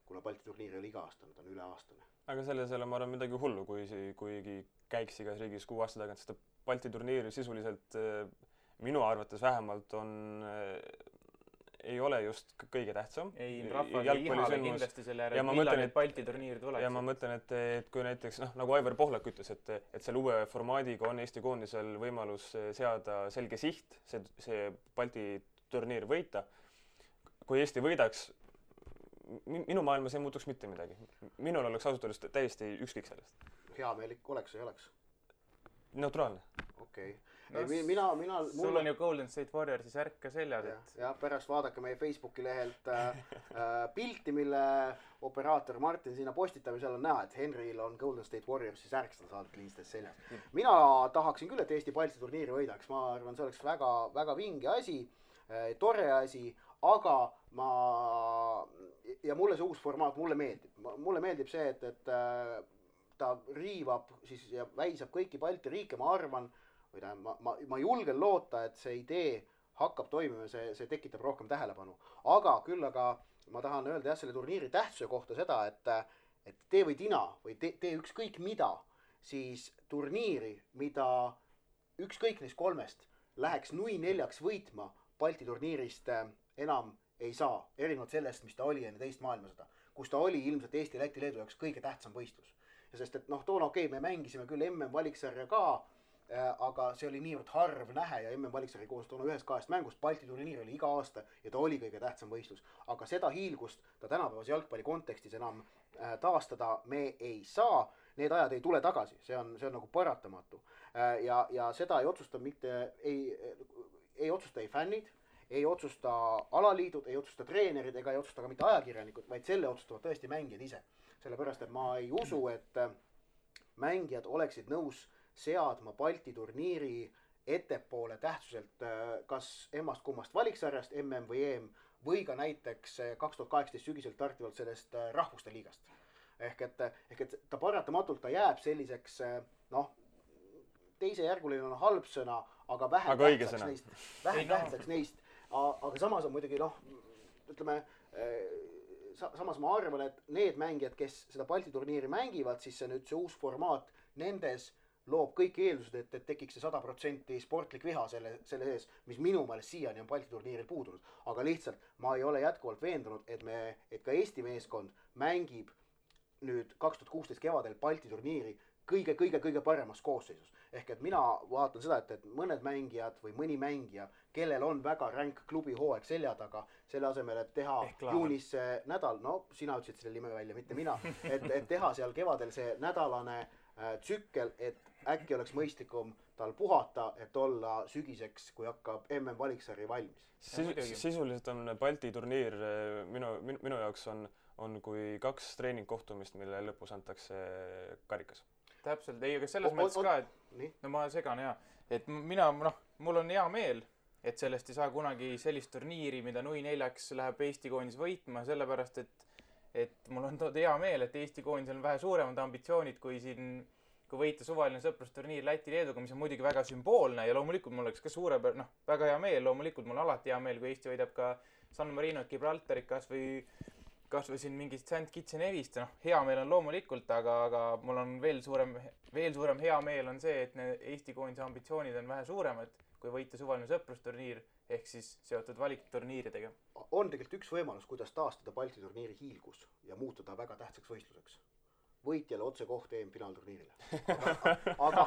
kuna Balti turniir ei ole iga-aastane, ta on üle-aastane. aga selles ei ole, ma arvan, midagi hullu, kuigi käiks igas riigis 6 aasta tagant, sest Balti turniir sisuliselt minu arvates vähemalt ei ole just kõige tähtsam. Ei, rahvas ei ihale kindlasti selle järel, millal need Balti turniir tuleks. Ja ma mõtlen, et kui näiteks, nagu Aivar Pohlak ütles, et selle uue formaadiga on Eesti koondisel võimalus seada selge siht, see Balti turniir võita. Kui Eesti võidaks, minu maailmas ei muutuks mitte midagi. Minul oleks ausalt öeldes täiesti ükskõik sellest. Heameelik oleks või ei oleks? Neutraalne. Okei. Sul on ju Golden State Warriorsi särk ka seljas. Ja pärast vaadake meie Facebooki lehelt pilti, mille operaator Martin sinna postitab ja seal on näha, et Henril on Golden State Warriorsi särk, seda saadab kliinstes seljas. Mina tahaksin küll, et Eesti Balti turniiri võidaks. Ma arvan, see oleks väga, väga vinge asi, tore asi, aga ja mulle see uus formaat, mulle meeldib. Mulle meeldib see, et ta riivab siis ja väisab kõiki Balti riike, ma arvan, ma julgen loota, et see idee hakkab toimima, see tekitab rohkem tähelepanu. Aga ma tahan öelda selle turniiri tähtsuse kohta seda, et tee või tina või tee ükskõik mida, siis turniiri, mida ükskõik neist 3 läheks nui 4 võitma, Balti turniirist enam ei saa. Erinevalt sellest, mis ta oli enne teist maailmasõda, kus ta oli ilmselt Eesti, Läti, Leedu jaoks kõige tähtsam võistlus. Ja sest, et toona me mängisime küll MM-valiksarja ka, aga see oli niivõrd harv nähe ja MM-valiksarja koos toona 1-2 mängust. Balti turniir oli iga aasta ja ta oli kõige tähtsam võistlus. Aga seda hiilgust ta tänapäevase jalgpalli kontekstis enam taastada me ei saa. Need ajad ei tule tagasi, see on nagu paratamatu. Ja seda ei otsusta ei otsusta ei fännid, ei otsusta alaliidud, ei otsusta treenerid ega ei otsusta ka mitte ajakirjanikud, vaid selle otsustavad tõesti mängijad ise. Sellepärast, et ma ei usu, et mängijad oleksid nõus seadma Balti turniiri ettepoole tähtsuselt kas emmast kummast valiksarjast, MM või EM, või ka näiteks 2018 sügiselt startivalt sellest rahvuste liigast. Ehk et ta paratamatult ta jääb selliseks, teisejärguline on halb sõna, aga vähem tähtsaks neist. Aga samas on muidugi, ütleme, samas ma arvan, et need mängijad, kes seda Balti turniiri mängivad, siis see uus formaat nendes loob kõik eeldused, et tekiks see 100% sportlik viha selle sees, mis minu meelest siiani on Balti turniiril puudunud. Aga lihtsalt ma ei ole jätkuvalt veendunud, et ka Eesti meeskond mängib nüüd 2016 kevadel Balti turniiri kõige paremas koosseisus. Ehk et mina vaatan seda, et mõned mängijad või mõni mängija, kellel on väga ränk klubi hooaeg selja taga, selle asemel, et teha juunis nädal, sina ütlesid selle nime välja, mitte mina, et teha seal kevadel see nädalane tsükkel, et äkki oleks mõistlikum tal puhata, et olla sügiseks, kui hakkab MM-valiksari valmis. Sisuliselt on Balti turniir minu jaoks on kui 2 treeningkohtumist, mille lõpus antakse karikas. Täpselt, ei, aga selles mõttes ka, et ma segan et mul on hea meel, et sellest ei saa kunagi sellist turniiri, mida nui 4 läheb Eesti koondis võitma, sellepärast, et mul on hea meel, et Eesti koondis on vähe suuremad ambitsioonid kui võita suvaline sõprusturniir Läti-Leeduga, mis on muidugi väga sümboolne ja loomulikult mul oleks ka väga hea meel, loomulikult mul alati hea meel, kui Eesti võidab ka San Marino, Gibraltarit kas või siin mingist St. Kitts ja Nevist, hea meel on loomulikult, aga mul on veel suurem hea meel on see, et Eesti koondise ambitsioonid on vähe suuremad, kui võita suvaline sõprusturniir, ehk siis seotud valikturniiridega. On tegelikult üks võimalus, kuidas taastada Balti turniiri hiilgus ja muutuda väga tähtsaks võistluseks. Võitjale otse koht EM-finaalturniirile. Aga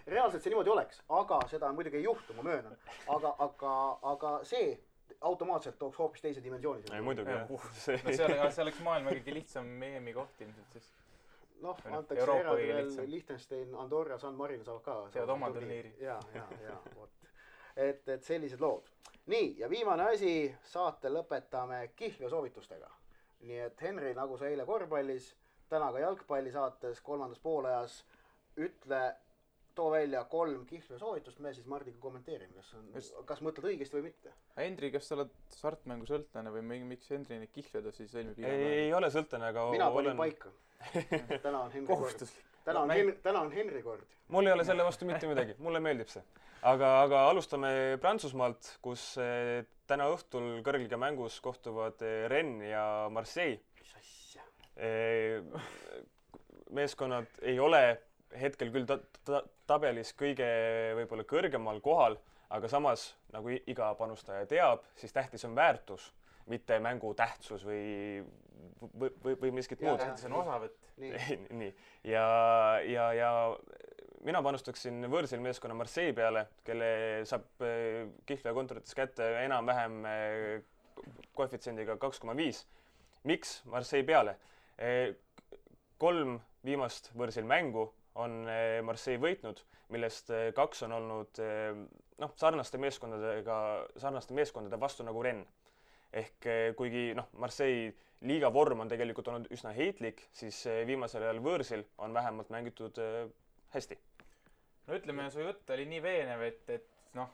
reaalselt see niimoodi oleks, aga seda muidugi ei juhtu, ma möönan. Aga see automaatselt tooks hoopis teise dimensiooni. Ei, muidugi, see oleks maailma kõige lihtsam EM-i koht ilmselt siis. Antakse eraldi veel Liechtenstein, Andorra, San Marino saavad ka. Seavad oma turniiri. Ja, vot. Et sellised lood. Nii, ja viimane asi, saate lõpetame kihlveo soovitustega. Nii et Henri, nagu sa eile korvpallis, täna ka jalgpalli saates 3. poolajas, too välja 3 kihlveo soovitust, me siis Mardiga kommenteerime, kas mõtled õigesti või mitte. Hendri, kas sa oled sartmängu sõltlane või miks Hendri neid kihlveoda siis sõlmib? Ei ole sõltlane, aga mina panin paika. Täna on Henri kohustuslik. täna on Henri kord. Mul ei ole selle vastu mitte midagi, mulle meeldib see. Aga alustame Prantsusmaalt, kus täna õhtul kõrgliiga mängus kohtuvad Rennes ja Marseille. Mis asja? Meeskonnad ei ole hetkel küll tabelis kõige võib-olla kõrgemal kohal, aga samas, nagu iga panustaja teab, siis tähtis on väärtus, mitte mängu tähtsus või miskit muud. Tähtis on osavõtt. Nii. Ja mina panustaksin võõrsil meeskonna Marseille peale, kelle saab Kihlveo kontorites kätte enam-vähem koefitsiendiga 2,5. Miks Marseille peale? 3 viimast võõrsil mängu on Marseille võitnud, millest 2 on olnud sarnaste meeskondade vastu nagu Rennes. Ehk kuigi Marseille liiga vorm on tegelikult olnud üsna heitlik, siis viimasel ajal võõrsil on vähemalt mängitud hästi. No ütleme, su jutt oli nii veenev, et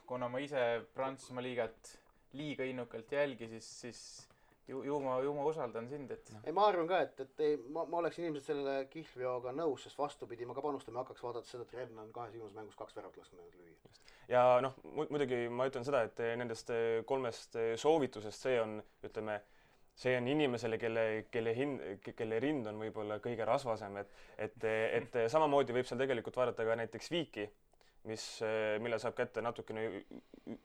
kuna ma ise Prantsusmaa liigat liiga innukalt jälgi, siis ju ma usaldan sind, et... Ei, ma arvan ka, et ma oleksin inimesed selle Kihlveoga nõus, sest vastupidi, ma ka panustama hakkaks vaadata seda, et Rennes on 2 viimases mängus 2 väravat lasknud lüüa. Ja muidugi ma ütlen seda, et nendest 3 soovitusest see on inimesele, kelle rind on võib-olla kõige rasvasem, et samamoodi võib seal tegelikult vaadata ka näiteks Viiki, mille saab kätte natukene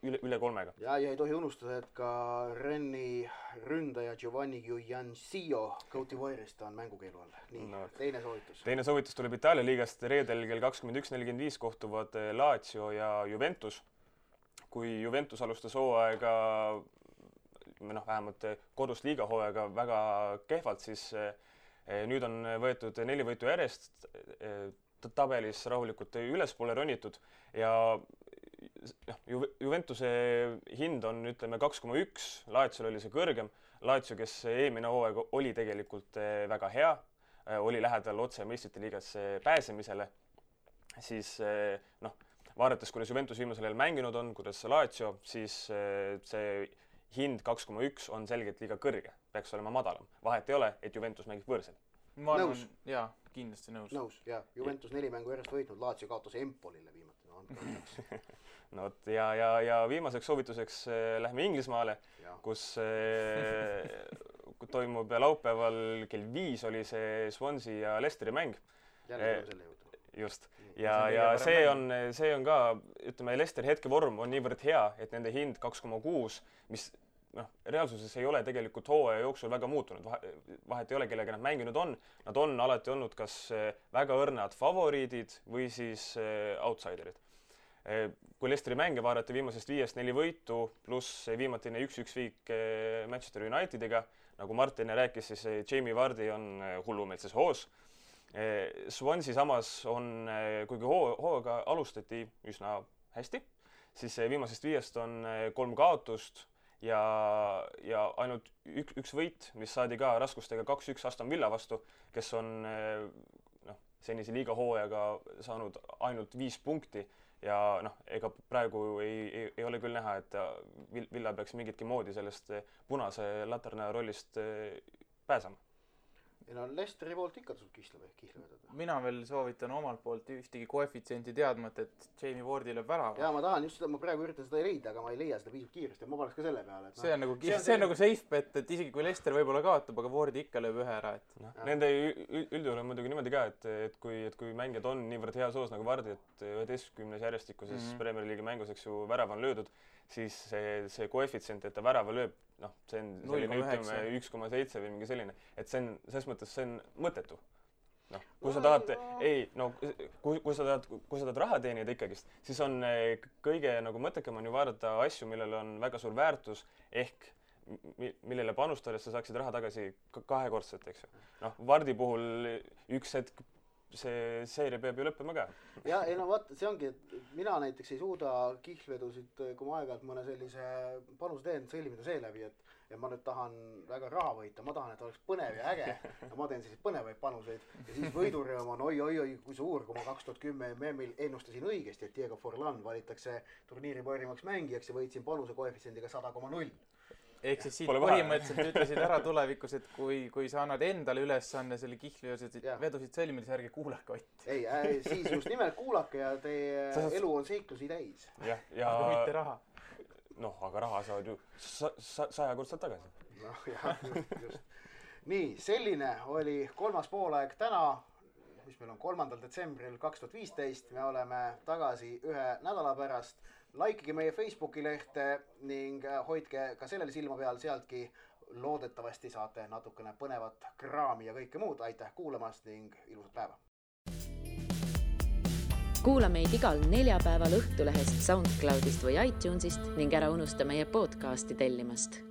üle 3. Ja ei tohi unustada, et ka Rennes'i ründaja Giovanni Guiancio Côte d'Ivoire'ist on mängukeelu all. Nii, teine soovitus. Teine soovitus tuleb Itaalia liigast. Reedel kell 21.45 kohtuvad Lazio ja Juventus. Kui Juventus alustas hooaega, vähemalt kodus liiga hooaega väga kehvalt, siis nüüd on võetud 4 võitu järjest, tabelis rahulikult ülespoole ronitud ja Juventuse hind on 2,1, Laziol oli see kõrgem. Lazio, kes eelmine hooaeg oli tegelikult väga hea, oli lähedal otse meistrite liigasse pääsemisele, siis vaadates, kuidas Juventus viimasel ajal mänginud on, kuidas Lazio, siis see hind 2,1 on selgelt liiga kõrge, peaks olema madalam. Vahet ei ole, et Juventus mängib võõrsel. Ma arvan, jaa, kindlasti nõus. Nõus, jah. Juventus 4 mängu järjest võitnud, Lazio kaotas Empolile viimati. Ja viimaseks soovituseks lähme Inglismaale, kus toimub laupäeval kell 5 oli see Swansea ja Leicesteri mäng. Jälle selle juurde. Just. Ja see on ka, Leicesteri hetkevorm on niivõrd hea, et nende hind 2,6, mis reaalsuses ei ole tegelikult hooaja jooksul väga muutunud. Vahet ei ole, kellega nad mänginud on. Nad on alati olnud kas väga õrnad favoriidid või siis outsiderid. Kui Leicesteri mänge vaadati viimasest 5-4 võitu, pluss viimatine 1-1 viik Manchester Unitediga, nagu Martin rääkis, siis Jamie Vardy on hullumeelses hoos. Swansea samas on, kuigi hooga alustati üsna hästi, siis viimasest 5 on 3 kaotust ja ainult üks võit, mis saadi ka raskustega 2-1 Aston Villa vastu, kes on senise liiga hooajaga saanud ainult 5 punkti ja ega praegu ei ole küll näha, et Villa peaks mingitki moodi sellest punase laterna rollist pääsema. Ja Leicesteri poolt ikka tasub kihla vedada. Mina veel soovitan omalt poolt ühtegi koefitsienti teadmata, et Jamie Vardy lööb värava. Ja ma tahan just seda, ma praegu üritan seda leida, aga ma ei leia seda piisavalt kiiresti ja ma paneks ka selle peale. See on nagu safe bet, et isegi kui Leicester võib-olla kaotab, aga Vardy ikka lööb ühe ära. Nende üldjuhul on muidugi niimoodi ka, et kui mängijad on niivõrd hea soos nagu Vardy, et 11 järjestikuses Premier League'i mängus värav on löödud, siis see koefitsient, et ta värava lööb, see on selline 1,7 või mingi selline, et see on, selles mõttes see on mõttetu. Kui sa tahad, kui sa tahad raha teenida ikkagist, siis on kõige mõttekam on ju vaadata asju, millel on väga suur väärtus, ehk millele panustades sa saaksid raha tagasi kahekordselt, eks ju. Vardi puhul üks hetk see seeria peab ju lõppema ka. Ja vaata, see ongi, et mina näiteks ei suuda kihlvedusid, kui ma aeg-ajalt mõne sellise panuse teen, sõlmida seeläbi, et ma nüüd tahan väga raha võita, ma tahan, et oleks põnev ja äge ja ma teen selliseid põnevaid panuseid ja siis võidurõõm on oi, kui suur, kui ma 2010 MM-il ennustasin õigesti, et Diego Forlan valitakse turniiri parimaks mängijaks ja võitsin panuse koefitsiendiga 100,0. ehk siis siit põhimõtteliselt ütlesid ära tulevikus, et kui sa annad endale ülesanne selle kihvliosed vedusid sõlmida, siis ärge kuulake Ott. Ei, siis just nimelt kuulake ja teie elu on seiklusi täis. Aga mitte raha. Noh, aga raha saavad ju 100-kordselt tagasi. Noh, jah, just. Nii, selline oli 3. poolaeg täna, mis meil on 3. detsembril 2015. Me oleme tagasi 1 nädala pärast. Likeige meie Facebooki lehte ning hoidke ka sellele silma peal, sealtki loodetavasti saate natukene põnevat kraami ja kõike muud. Aitäh kuulamast ning ilusat päeva! Kuula meid igal neljapäeval Õhtulehest, SoundCloudist või iTunesist ning ära unusta meie podcasti tellimast.